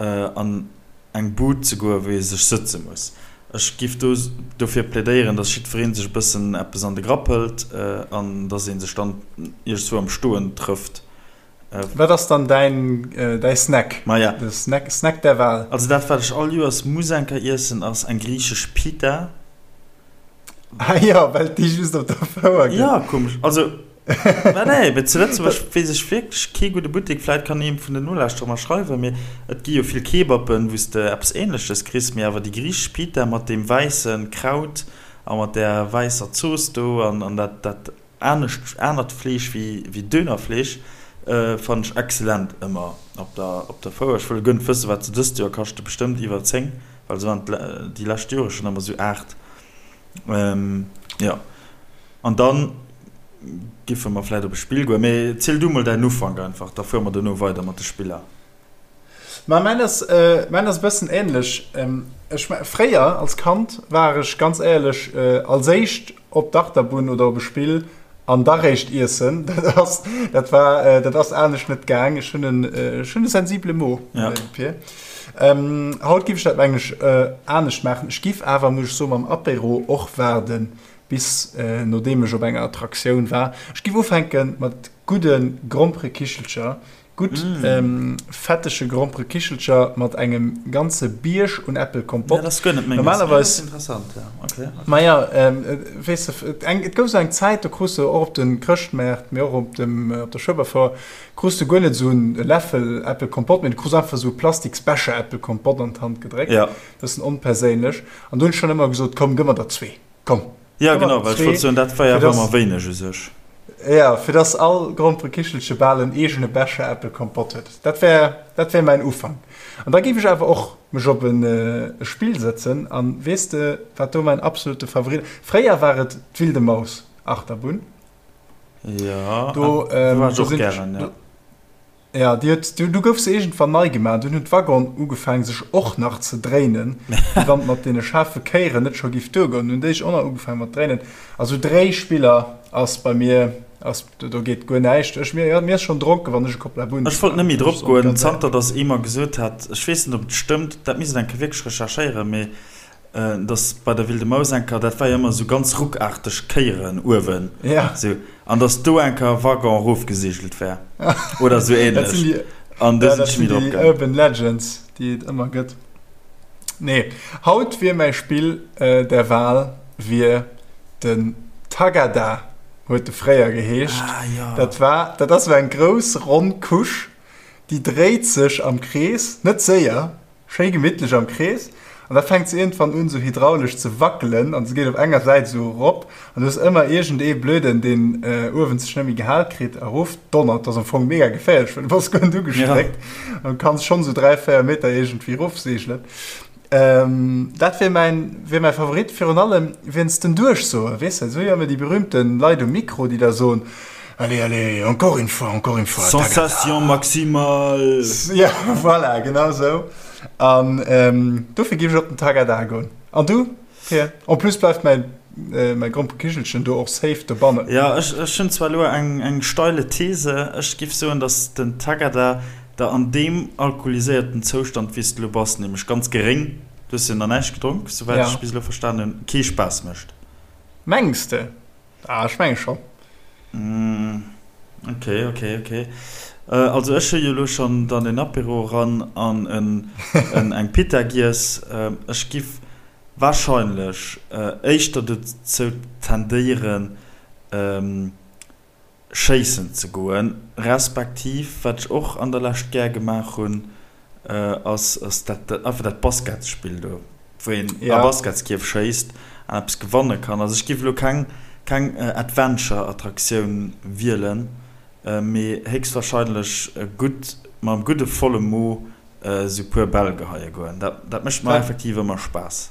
an eng Bud ze goen, wou ee sech sëtze muss. Ech giff do dofir plädéieren, dass jiddweree sech e bëssen eppes an de Grapp hëlt an dass ee sech dann iergendswou am Stoen trëfft. Wat ass dann däin däi Snack? Maja. De Snack, Snack der Wahl? Also dat wat ech all Joers muss eng Kéier iessen ass eng griichesch Pita. Ah jo, well et déi just op der Fouer gëtt. Jo, komesch. Also, mä nee, mee zu Lëtzebuerg weess ech wierklech kee gudde Buttek. Vläit kann ee vun den Nolauschterer mer schreiwen, mee et gi jo vill Kebappen, wou s de eppes Ähnleches kriss, mee awer déi griichesch Pita mat deem wäisse Kraut a mat där wäisser Zooss do an an dat dat anescht anert Fleesch wéi wéi Dönerfleesch fannen ech excellent ëmmer op der op der Fouer. Ech wëll guer net wëssen, wat se dëst Joer kaschte, bestëmmt iwwer 10, well se waren déi lescht Jore schonn ëmmer sou 8. Jo, an dann giffe mer vläit op e Spill goen. Mee ziel du mol däin Ufank einfach, da fuere mer dono weider mat de Spiller. Ma mäin ass, mäin ass e bëssen ähnlech. Ech, fréier als Kand war ech ganz éierlech als éischt op d'Achterbunn oder op e Spill an da réischt iessen. Dat ass, dat war, dat ass anescht net gaang. Ech hunn en, ech hunn e sensibele Mo, Pir. Haut giff ech dat mengen ech anescht maachen. Ech giff awer, muss ech soen, mam Apéro och waarden, bis nodeem ech op enger Attraktioun war. Ech giff ufänke mat gudde Gromperekichelcher, gutt fettege Gromperekichelcher mat engem ganze Bierg un Äppelkompott. Ja, dat ass guer net menges. Normalerweis. Ja, dat ass interessant, ja. Okay. Maja, weess de, et gouf esou eng Zäit, do krus de och op de Chrëschtmaart, mee och op dem, op der Schueberfouer, Krus de guer net esou en Läffel Äppelkompott, mee du krus einfach esou e Plastiksbecher Äppelkompott an d'Hand gedréckt. Ja. Bëssen onperséinlech. An du hunn ech schonn ëmmer gesot, komm, gëmm mer der zwee. Komm, Ja, gëmm mer genau, der well ech wollt zwee, soen, dat war jo fir awer dass. ëmmer wéineg u sech. Ja, fir dass all Gromperekichelche bal en eegene Becher Äppelkompott huet. Dat wär, dat wär mäin Ufank. An da géif ech awer och mech op en Spill sëtzen. An weess de, wat do mäin absolute Favorit? Fréier war et d'Wilde Maus Achterbunn. Ja, do, ähm, war ech och gären, ja. Ja, déi huet, du, du gouf se iergendwann nei gemaach. Dunn hunn d'Waggonen ugefaangen, sech och nach ze dréinen, wéi wann et mat deene schaarfe Kéieren net scho giff duergoen. Hunn déi sech och nach ugefaangen mat dréinen. Also Dréispiller ass bei mir, ass, do geet guer näischt. Ech, mir, ja, mir ass schonn dronken, wann ech e Copla Bunn Ech wollt net méi drop goen, zanter datt ee mer gesot hat, ech weess net, ob et stëmmt, dat misst een eng Kéier wierklech recherchéieren, mee dass bei der Wilde Maus enker, dat war jo ëmmer esou ganz ruckaarteg Kéieren uewen, ja. esou, an dass do enker e Waggon erofgeseegelt wär oder esou ähnlech. An do sinn ech méi drop gaangen. Urban Legends, déi et ëmmer gëtt. Nee, haut wier mäi Spill der Wahl wier den Tagada, huet de fréier geheescht. Ah, ja. Dat war, dat ass esou eng grouss ronn Couche, déi dréit sech am Krees, net séier, Schéi gemittlech am Krees an da fänkt se iergendwann un sou hydraulesch ze wackelen an se geet op enger Säit sou erop an du hues ëmmer iergend ee Blöden deen uewen sech net méi gehal kritt a rof donnert. Dat ass am Fong mega geféierlech well du bass guer net ugestréckt an kanns schonn sou 3, 4 Meter iergendwéi rofseegelen. Dat wier mäin wier mäi Favorit, virun allem wéinst den Duerchsoen, weess de, sou jo ëmmer déi berühmten Leit um Mikro déi da soen, Allez, allez, encore une fois, encore une fois. Sensation maximale! Ja, voilà, genau sou. An ähm, dofir géif ech op den Tagada goen. An du, Pir? En plus bleift mäin, äh, mäi Gromperekichelchen do och safe dobannen. Ja, ech, ech hunn zwar elo eng, eng steile These. Ech giff soen, dass den Tagada der an deem alkoholiséierten Zoustand, wéi s de elo bass, nämlech ganz geréng, du hues jo nach näischt gedronk, souwäit Ja. ech bis elo verstanen hunn, kee Spaass mécht. Mengs de? Ah, ech menge schon. Mm, ok, ok, ok. Also ech hu jo elo schon dann en Apéro eran an en, en, eng Pita giess. Ech giff wahrscheinlech éischter dozou tendéieren schéissen ze goen, respektiv wat ech och an der Lescht gär gemaach hunn, ass ass dat einfach dat Basketsspill do, wou een a Basketskierf schéisst an eppes gewanne kann. Also ech géif elo keng keng Adventure-Attraktioun wielen, mee héchstwahrscheinlech gutt mam gudde volle Mo esou puer Bäll geheie goen. Dat dat mécht mer effektiv ëmmer Spaass.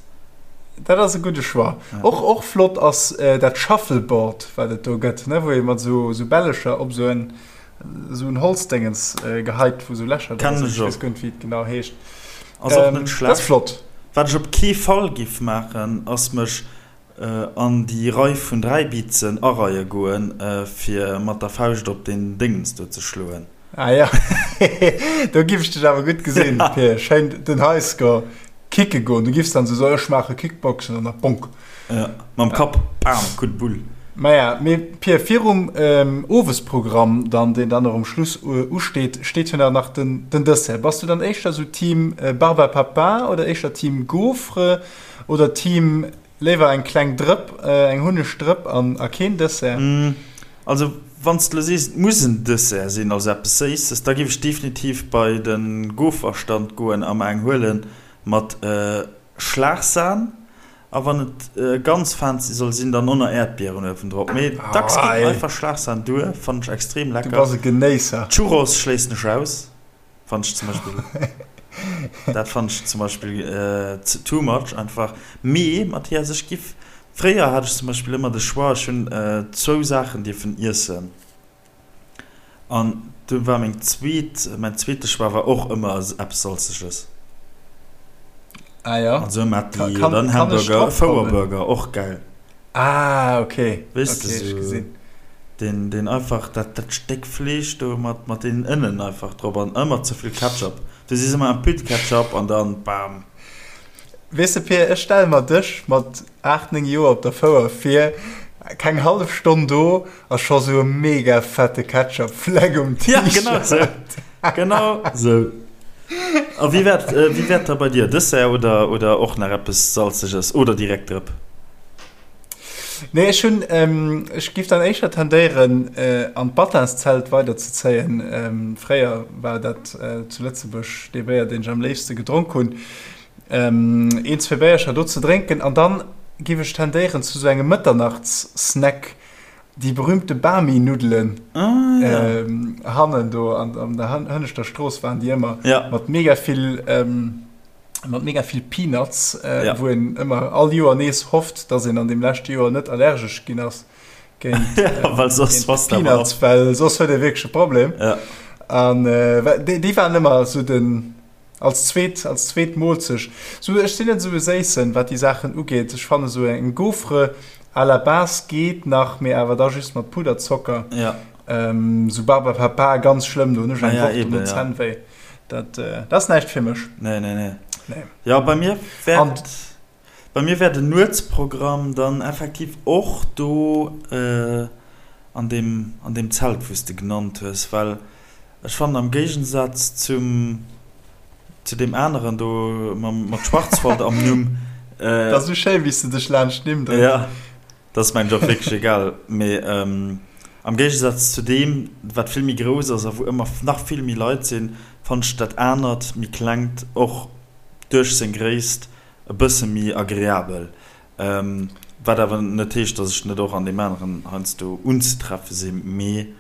Dat ass e gudde Choix. Och och flott ass dat Shuffleboard, wat et do gëtt, ne, wou ee mat esou esou Bällecher op esou en Esou en Holzdéngens geheit, wou sou Lächer dran sinn. Ech weess guer net, wéi et genau heescht. Ass och net schlecht. Dat ass flott. Wat ech op kee Fall giff maachen, ass mech an déi Rei vun 3 Bizen areie goen, fir mat der Fauscht op deen Déngens do ze schloen. Ah ja, do giff ech dech awer gutt gesinn, Pir. Schéin den Highscore kicke goen. Du giffs dann sou soen, ech maache Kickboxen an da bonk. Ja, mam Kapp, bam, Coup de boule. Maja, mee Pir, virum Owesprogramm dann, deen dann och um Schluss usteet, steet jo nach den Dessert. Bass du dann éischter sou Team Barbapapa oder éischter Team Gaufre oder Team léiwer eng kleng Drëpp, eng Hunnegdrëpp an a keen Dessert? Also wann s de lo sees, et muss en Dessert sinn, also eppes Séisses, da géif ech definitiv bei de Gaufrestand goen a mer eng huele mat Schlagsahn. A wann et ganz fancy soll sinn, dann och nach Äerdbieren uewendrop. Mee dacks geet mir einfach Schlagsahn duer, fannen ech extrem lecker. Du bass e Genéisser. Churros schléissen ech aus, fannen ech zum Beispill, dat fannen ech zum Beispill too much einfach. Mee Mathias, ech giff, fréier hat ech zum Beispill ëmmer de Choix, ech hunn zwou Saachen dierfen iessen. An du war meng zweet, mäin zweete Choix war och ëmmer eppes Salzeges. Ah ja. Also e Mettli oder en Hamburger, e Fouerburger, och gäil. Ah ok, Weess de, sou deen, deen einfach dat, dat Stéck Fleesch do mat, mat deenen Ënnen einfach drop an ëmmer ze vill Ketchup. Du sees ëmmer un peu de Ketchup an dann bam. Weess de Pir, ech stelle mer dech mat 8, 9 Joer op der Fouer vir, keng hallef Stonn do a scho sou e mega fette Ketchup-Fleck um Ja, genau sou. Genau sou. A wéi wäert, wéi wäert da bei dir? Dessert oder, oder och nach eppes Salzeges oder direkt Drëpp? Nee, ech hunn, ech giff dann éischter tendéieren an d'Battinszelt weiderzezéien. Fréier war dat zu Lëtzebuerg dee Béier, deen ech am léifste gedronk hunn. Een, zwee Béiercher do ze drénken an dann giff ech tendéieren zu sou engem Mëtternachtssnack. Déi berühmte Bami-Nuddelen ah, ja. ähm, hannen do an, an der hënneschter Strooss waren déi ëmmer ja. mat mega vill ähm, mat mega vill Peanuts, äh, ja. wou een ëmmer all Joer nees hofft, dass een an dem leschte Joer net allergesch ginn ass géint, ja, äh, well soss géint Peanuts, well soss huet e wierklech e Problem. Ja. An äh, déi, déi waren ëmmer so den Als zweet, als zweet Moolzeg. Sou, ech sinn net esou e Séissen, wat déi Saachen ugeet. Ech fannen esou eng Gaufre à la base geet nach, mee awer da just mat Pudderzocker. Ja. Sou Barbapapa, ganz schlëmm, do hunn ech Ah eng ja, Woch eben, dono ja. Zännwéi. Dat, dat ass näischt fir mech. Nee, nee, nee. Nee. Jo, bei mir An. wäert, bei mir wär den Nuetsprogramm dann effektiv och do an deem, an deem Zelt, wou s de genannt hues, well Ech fannen am Géigensaz zum zu deem aneren do mam mat Schwarzwald am Numm. Dat ass esou schéi wéi s de dech laanscht d'Nimm drécks. Jo, dat ass mengen ech och wierklech egal. Mee am Géigesaz zu deem wat vill méi grouss ass a wou ëmmer nach vill méi Leit sinn, fannen ech dat anert méi klengt och duerch seng Gréisst e bësse méi agreabel. Wat awer net heescht, datt ech net och an deem aneren heiansdo unzetreffe sinn, mee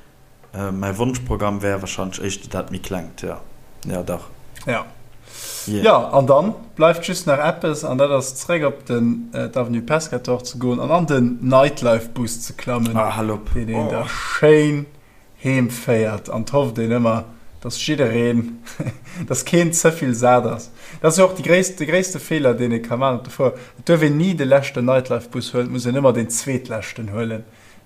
Mäi Wonschprogramm wär wahrscheinlech éischter dat méi klengt, jo. Jo, dach. Ja. Yeah. Jo, an dann bleift just nach eppes, an dat ass zréck op den d'Avenue Pescator ze goen an an den Nightlife-Bus ze klammen, Ah, hal op. deen een da Oh. schéin heem féiert. An 't hofft een ëmmer, dass jiddereen, dass keen ze vill sat ass. Dat ass jo och déi gréisst, de gréisste Feeler, deen ee ka maachen op der Fouer. Et duerf een ni de leschten Nightlife-Bus huelen, et muss een ëmmer deen zweetleschten huelen.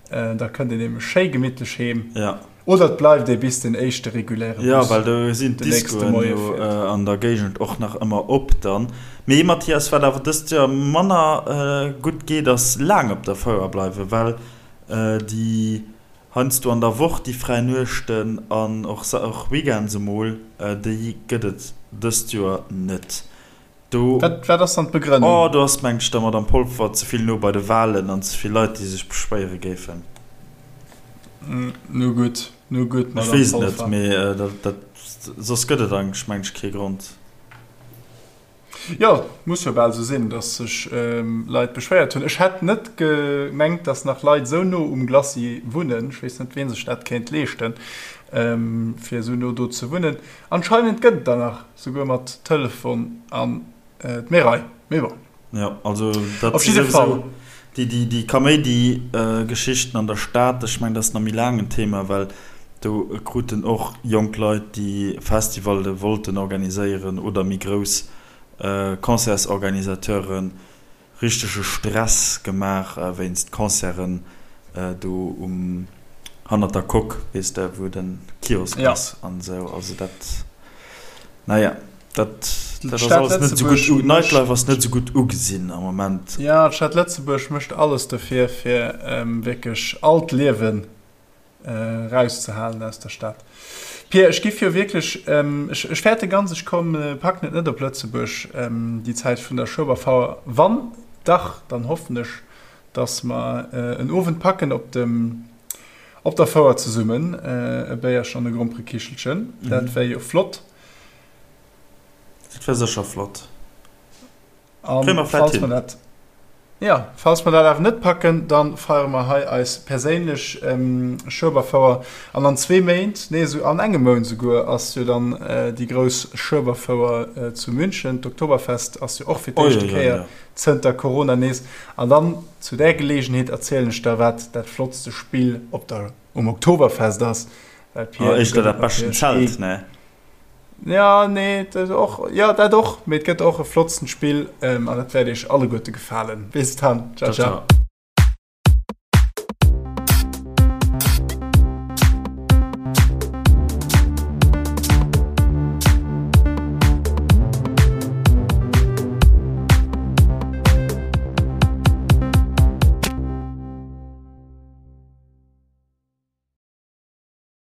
Da kënnt een nämlech schéi gemittlech heem. Ja. Oder et bleift ee bis den éischte reguläre Bus Ja, well do sinn d'Discoen jo an der Géigend och nach ëmmer op dann. Mee Mathias, wat awer dëst Joer manner gutt geet, ass laang op der Fouer bleiwen, well déi heiansdo an der Woch déi fräi Nuechten an och Weekends emol, déi gëtt et dëst Joer net. Do, Wat, wat ass dann d'Begrënnung? Oh, do ass, mengt ech, der Madame Polfer ze vill no bei de Wahlen an ze vill Leit, déi sech beschwéiere géifen. Nu gutt, nu gutt, Ech Madame weess et net, Polfer. mee dat, dat, soss gëtt et eigentlech, mengt ech, kee Grond. Jo, et muss jo bal esou sinn, datt sech Leit beschwéiert hunn. Ech hätt net gemengt, datt nach Leit esou no um Glacis wunnen. Ech weess net, wien sech dat kéint leeschten, fir esou no do ze wunnen. Anscheinend gëtt et der nach. Souguer mat Telefon an d'Mireille, mee bon. Jo, also dat Op si jidde souwisou Fall. déi, déi, déi Kaméidi-Geschichten an der Stad, ech mengen, dat ass nach méi laang en Thema, well do kruten och jonk Leit, déi Festivalle wollten organiséieren oder méi grouss Concertsorganisateuren, richtege Stress gemaach wéinst Concerten do um hannert der Coque, weess de, wou den Kiosk ass an esou. Also dat, naja, dat dat ass alles net esou gutt, Nightlife ass net esou gutt ugesinn am Moment. Jo, d'Stad Lëtzebuerg mécht alles dofir, fir wierklech all d'Liewen Rauszehalen aus der Stad. Pir, ech giff jo wierklech, ech fäerte ganz, ech komm, packen et net op Lëtzebuerg déi Zäit vun der Schueberfouer. Wann dach, dann hoffen ech, dass mer en Owend packen op dem, op der Fouer zesummen, e Béierchen an e Gromperekichelchen. Dat wär jo flott. Dat wär sécher flott. An falls mer dat, ja, falls mer dat awer net packen, dann feiere mer hei eis perséinlech Schueberfouer. An an zwee Méint, nee esou an engem Mount esouguer, ass jo dann déi grouss Schueberfouer zu München. D'Oktoberfest ass jo och fir d'éischte Kéier zënter Corona nees. An dann zu där Geleegenheet erzielen ech der, wat dat flottste Spill op der, um Oktoberfest ass. Well Pir, do gëtt et natierlech ee. Ja, nee, dat och, ja, dat och, mee et gëtt och e flottsten Spill, an dat wäert iech alleguerte gefalen. Bis dann, ciao, ciao. Ciao, ciao.